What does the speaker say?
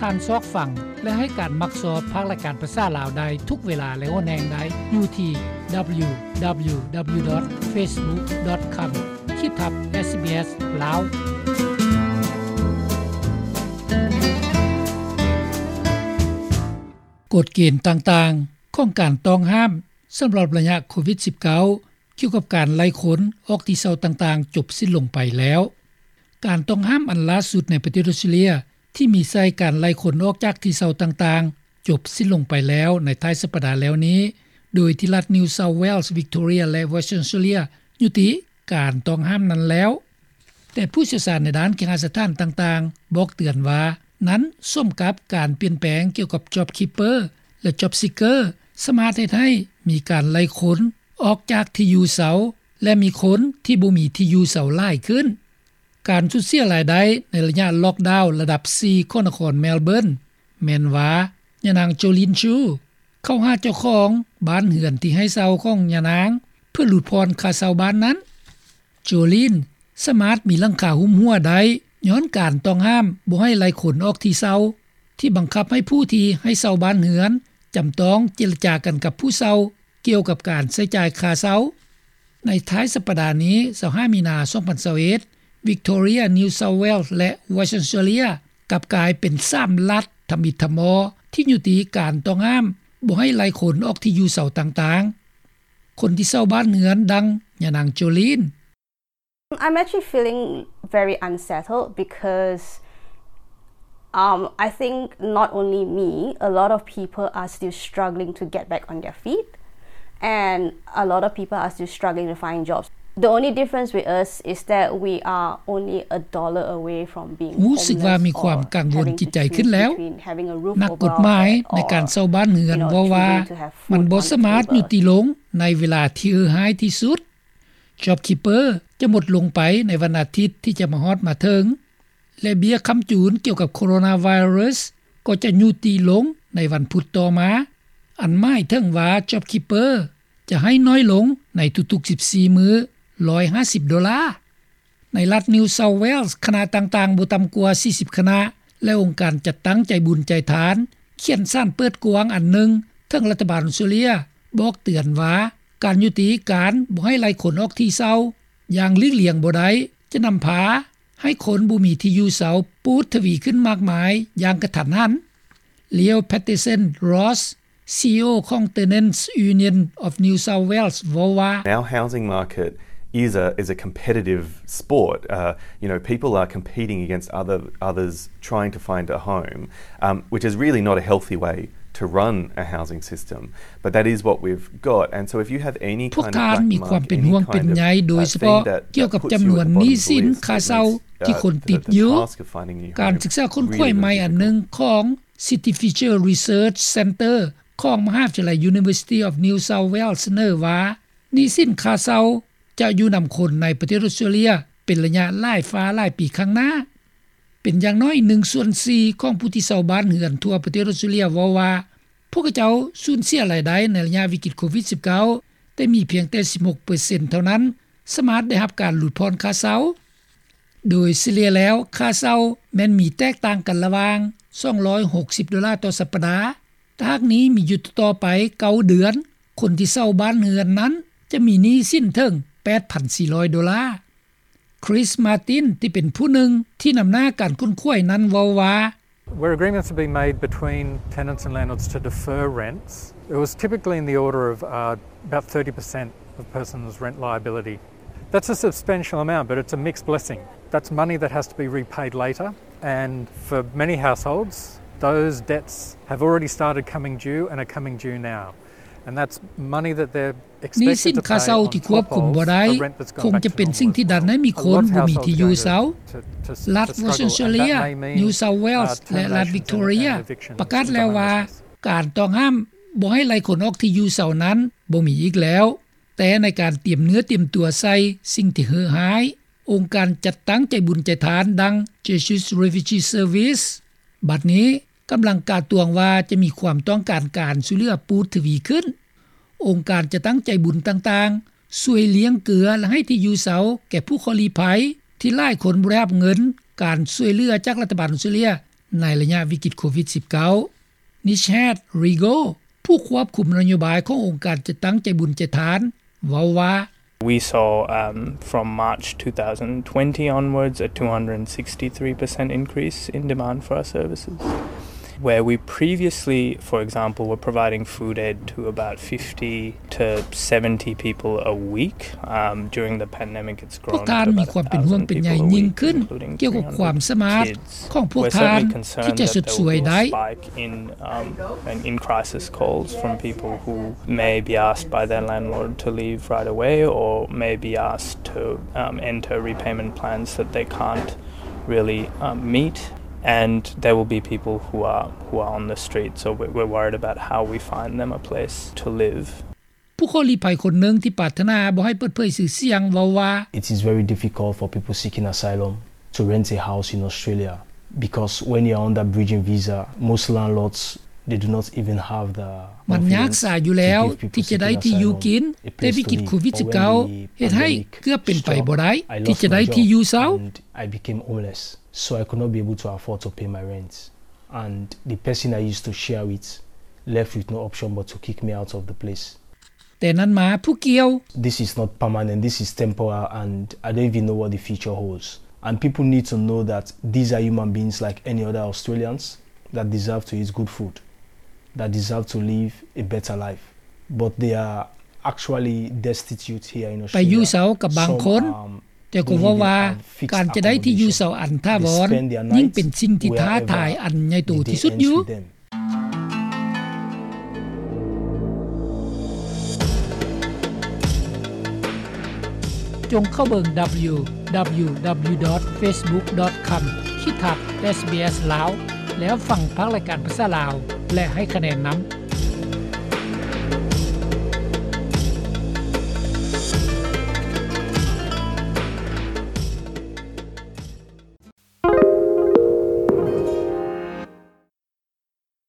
ທ່ານຊອກຟັງ ແລະ ໃຫ້ການມັກຊອບພາກລາຍການພາສາລາວໄດ້ທຸກເວລາ ແລະ ຫົວແຮງໄດ້ຢູ່ທີ່ www.facebook.com ຂີດທັບ SBS ລາວ. ກົດເກນຕ່າງໆຂອງການຕ້ອງຫ້າມສຳລັບໄລຍະໂຄວິດ-19 ກ່ຽວກັບການໄລ່ຄົນອອກທີ່ເຊົ່າຕ່າງໆຈົບສິ້ນລົງໄປແລ້ວ. ການຕ້ອງຫ້າມອັນລ່າສຸດໃນປະເທດອອສເຕຣເລັຍ ທີ່ມີໃສ່ການໄລ່ຄົນອອກຈາກທີ່ເຊົ່າຕ່າງໆ ຈົບສິ້ນລົງໄປແລ້ວໃນທ້າຍສັບປະດາແລ້ວນີ້, ໂດຍທີ່ລັດ New South Wales, Victoria ແລະ Western Australia ຍຸຕິການຕ້ອງຫ້າມນັ້ນແລ້ວ. ແຕ່ຜູ້ຊ່ຽວຊານໃນດ້ານເຄຫະສະຖານຕ່າງໆ ບອກເຕືອນວ່າ ນັ້ນສົມກັບການປ່ຽນແປງກ່ຽວກັບ JobKeeper ແລະ JobSeeker ສາມາດເຮັດໃຫ້ມີການໄລ່ຄົນອອກຈາກທີ່ຢູ່ເຊົ່າ ແລະ ມີຄົນທີ່ບໍ່ມີທີ່ຢູ່ເຊົ່າຫຼາຍຂຶ້ນ. ການສູນເສຍລາຍໄດ້ໃນໄລຍະລັອກດາວລະດັບສີ່ຂອງນະຄອນເມລເບີນ ແມ່ນວ່າ ຍານາງ ໂຈລີນ ຊູ ເຂົ້າຫາເຈົ້າຂອງບ້ານເຮືອນທີ່ໃຫ້ເຊົ່າຂອງຍານາງ ເພື່ອຫຼຸດຜ່ອນຄ່າເຊົ່າບ້ານນັ້ນ. ໂຈລີນ ສາມາດມີຫຼັງຄາຫຸ້ມຫົວໄດ້ ຍ້ອນການຕ້ອງຫ້າມບໍ່ໃຫ້ໄລ່ຄົນອອກທີ່ເຊົ່າ ທີ່ບັງຄັບໃຫ້ຜູ້ທີ່ໃຫ້ເຊົ່າບ້ານເຮືອນ ຈຳຕ້ອງເຈລະຈາກັນກັບຜູ້ເຊົ່າ ກ່ຽວກັບການໃຊ້ຈ່າຍຄ່າເຊົ່າ. ໃນທ້າຍສັບປະດານີ້ ຊາວຫ້າ ມີນາ ສອງພັນຊາວເອັດ Victoria, New South Wales ແລະ Western Australia ກັບກາຍເປັນສາມລັດທຳອິດທຳມໍ ທີ່ຍຸຕິການຕ້ອງຫ້າມບໍ່ໃຫ້ໄລ່ຄົນອອກທີ່ຢູ່ເຊົ່າຕ່າງໆ. ຄົນທີ່ເຊົ່າບ້ານເຮືອນ ດັ່ງ ຍານາງ ໂຈລີນ. I'm actually feeling very unsettled because, um, I think not only me, a lot of people are still struggling to get back on their feet, and a lot of people are still struggling to find jobs. The only difference with us is that we are only a dollar away from being homeless or having to choose between having a roof over our head or, you know, choosing to have food on the table or, you know, choosing to have food on the table. ຮູ້ສຶກວ່າມີຄວາມກັງວົນຈິດໃຈຂຶ້ນແລ້ວ. ນັກກົດໝາຍໃນການເຊົ່າບ້ານເຮືອນເວົ້າວ່າ ມັນບໍ່ສາມາດຍຸຕິລົງໃນເວລາທີ່ເຫື່ອຮ້າຍທີ່ສຸດ. JobKeeper ຈະໝົດລົງໄປໃນວັນອາທິດທີ່ຈະມາຮອດມາເຖິງ ແລະ ເບ້ຍຄ້ຳຈູນກ່ຽວກັບໂຄໂຣນາໄວຣັສກໍຈະຍຸຕິລົງໃນວັນພຸດຕໍ່ມາ, ອັນໝາຍເຖິງວ່າ JobKeeper ຈະໃຫ້ໜ້ອຍລົງໃນທຸກໆສິບສີ່ມື້ ຮ້ອຍຫ້າສິບໂດລາ. ໃນລັດ New South Wales ຄະນະຕ່າງໆບໍ່ຕ່ຳກວ່າສີ່ສິບຄະນະ ແລະ ອົງການຈັດຕັ້ງໃຈບຸນໃຈທານ ຂຽນສານເປີດກວ້າງອັນໜຶ່ງເຖິງລັດຖະບານອອສເຕຣເລັຍ ບອກເຕືອນວ່າ ການຍຸຕິການບໍ່ໃຫ້ໄລ່ຄົນອອກທີ່ເຊົ່າຢ່າງຫຼີກລ່ຽງບໍ່ໄດ້ ຈະນຳພາໃຫ້ຄົນບໍ່ມີທີ່ຢູ່ເຊົ່າປູດທະວີຂຶ້ນມາກມາຍຢ່າງກະທັນຫັນ. Leo Patterson-Ross, CEO ຂອງ Tenants Union of New South Wales ເວົ້າວ່າ Our housing market is a, is a competitive sport. Uh, you know, people are competing against other, others trying to find a home, um, which is really not a healthy way to run a housing system. But that is what we've got. And so if you have any kind of black mark, any kind of, uh, thing that, that puts you at the bottom of the list, uh, to the, to the cost of finding a new home, ພວກທ່ານມີຄວາມເປັນຫ່ວງເປັນໃຍໂດຍສະເພາະກ່ຽວກັບຈຳນວນໜີ້ສິນຄ່າເຊົ່າທີ່ຄົນຕິດຢູ່. ການສຶກສາຄົ້ນຄວ້າໃໝ່ອັນໜຶ່ງຂອງ City Future Research Centre ຂອງມະຫາວິທະຍາໄລ University of New South Wales ສະເໜີວ່າ ໜີ້ສິນຄ່າເຊົ່າຈະຢູ່ນຳຄົນໃນປະເທດອອສເຕຣເລັຍເປັນໄລຍະຫຼາຍຟ້າຫຼາຍປີຂ້າງໜ້າ. ເປັນຢ່າງໜ້ອຍໜຶ່ງສ່ວນສີ່ຂອງຜູ້ທີ່ເຊົ່າບ້ານເຮືອນທົ່ວປະເທດອອສເຕຣເລັຍເວົ້າວ່າ ພວກເຂົາເຈົ້າສູນເສຍລາຍໄດ້ໃນໄລຍະວິກິດໂຄວິດ-19 ແຕ່ມີພຽງແຕ່ສິບຫົກເປີເຊັນເທົ່ານັ້ນສາມາດໄດ້ຮັບການຫຼຸດຜ່ອນຄ່າເຊົ່າ. ໂດຍສະເລ່ຍແລ້ວ ຄ່າເຊົ່າແມ່ນມີແຕກຕ່າງກັນລະຫວ່າງສອງຮ້ອຍຫົກສິບໂດລາຕໍ່ສັບປະດາ. ຖ້າຫາກໜີ້ມີຢູ່ຕໍ່ໄປເກົ້າເດືອນ, ຄົນທີ່ເຊົ່າບ້ານເຮືອນນັ້ນຈະມີໜີ້ສິນເຖິງແປດພັນສີ່ຮ້ອຍໂດລາ. Chris Martin ທີ່ເປັນຜູ້ໜຶ່ງທີ່ນຳໜ້າການຄົ້ນຄວ້ານັ້ນເວົ້າວ່າ Where agreements have been made between tenants and landlords to defer rents, it was typically in the order of, uh, about thirty percent of a person's rent liability. That's a substantial amount, but it's a mixed blessing. That's money that has to be repaid later, and for many households, those debts have already started coming due and are coming due now. And that's money that they're ໜີ້ສິນຄ່າເຊົ່າທີ່ຄວບຄຸມບໍ່ໄດ້ ຄົງຈະເປັນສິ່ງທີ່ດັນໃຫ້ມີຄົນບໍ່ມີທີ່ຢູ່ເຊົ່າ. ລັດ Western Australia, New South Wales ແລະ ລັດ Victoria ປະກາດແລ້ວວ່າ ການຕ້ອງຫ້າມບໍ່ໃຫ້ໄລ່ຄົນອອກທີ່ຢູ່ເຊົ່ານັ້ນບໍ່ມີອີກແລ້ວ. ແຕ່ໃນການຕຽມເນື້ອຕຽມຕົວໃສ່ສິ່ງທີ່ເຫື່ອຮ້າຍ, ອົງການຈັດຕັ້ງໃຈບຸນໃຈທານ ດັ່ງ Jesuit Refugee Service ບັດນີ້ ກຳລັງກາດຕວງວ່າຈະມີຄວາມຕ້ອງການການຊ່ວຍເຫຼືອປູດທະວີຂຶ້ນ. ອົງການຈັດຕັ້ງໃຈບຸນຕ່າງໆ ຊ່ວຍລ້ຽງເກືອ ແລະ ໃຫ້ທີ່ຢູ່ເຊົ່າແກ່ຜູ້ເຄາະລີ້ໄພ ທີ່ຫຼາຍຄົນບໍ່ໄດ້ຮັບເງິນການຊ່ວຍເຫຼືອຈາກລັດຖະບານອອສເຕຣເລັຍ ໃນໄລຍະວິກິດໂຄວິດ-19, Nishad Rigo, ຜູ້ຄວບຄຸມນະໂຍບາຍຂອງອົງການຈັດຕັ້ງໃຈບຸນໃຈທານ, ເວົ້າວ່າ: We saw, um, from March two thousand twenty onwards, a two hundred sixty-three percent increase in demand for our services. Where we previously, for example, were providing food aid to about fifty to seventy people a week, um, during the pandemic, ພວກທ່ານມີຄວາມເປັນຫ່ວງເປັນໃຍຍິ່ງຂຶ້ນກ່ຽວກັບຄວາມສາມາດຂອງພວກທ່ານທີ່ຈະຊົດຊ່ວຍໄດ້. In, um, and in crisis calls from people who may be asked by their landlord to leave right away or may be asked to, um, enter repayment plans that they can't really, um, meet. And there will be people who are, who are on the streets, so we're, we're worried about how we find them a place to live. ຜູ້ຂໍລີ້ໄພຄົນໜຶ່ງທີ່ປາດຖະໜາບໍ່ໃຫ້ເປີດເຜີຍຊື່ສຽງເວົ້າວ່າ: It is very difficult for people seeking asylum to rent a house in Australia because when you are on that bridging visa, most landlords, they do not even have the ມັນຍາກສາຢູ່ແລ້ວທີ່ຈະໄດ້ທີ່ຢູ່ກິນ, ແຕ່ວິກິດໂຄວິດ-19 ເຮັດໃຫ້ເກືອບເປັນໄປບໍ່ໄດ້ທີ່ຈະໄດ້ທີ່ຢູ່ເຊົ່າ. I became homeless, so I could not be able to afford to pay my rent. And the person I used to share with left with no option but to kick me out of the place. ແຕ່ນັ້ນມາຜູ້ກ່ຽວ: This is not permanent, this is temporal, and I don't even know what the future holds. And people need to know that these are human beings like any other Australians that deserve to eat good food, that deserve to live a better life. But they are actually destitute here in Australia. ໄປຢູ່ເຊົ່າກັບບາງຄົນ, ແຕ່ກໍເວົ້າວ່າການຈະໄດ້ທີ່ຢູ່ເຊົ່າອັນຖາວອນຍິ່ງເປັນສິ່ງທີ່ທ້າທາຍອັນໃຫຍ່ໂຕທີ່ສຸດຢູ່. ຈົ່ງເຂົ້າເບິ່ງ www.facebook.com/sbs ລາວ ແລ້ວຟັງພາກລາຍການພາສາລາວ ແລະ ໃຫ້ຄະແນນນຳ.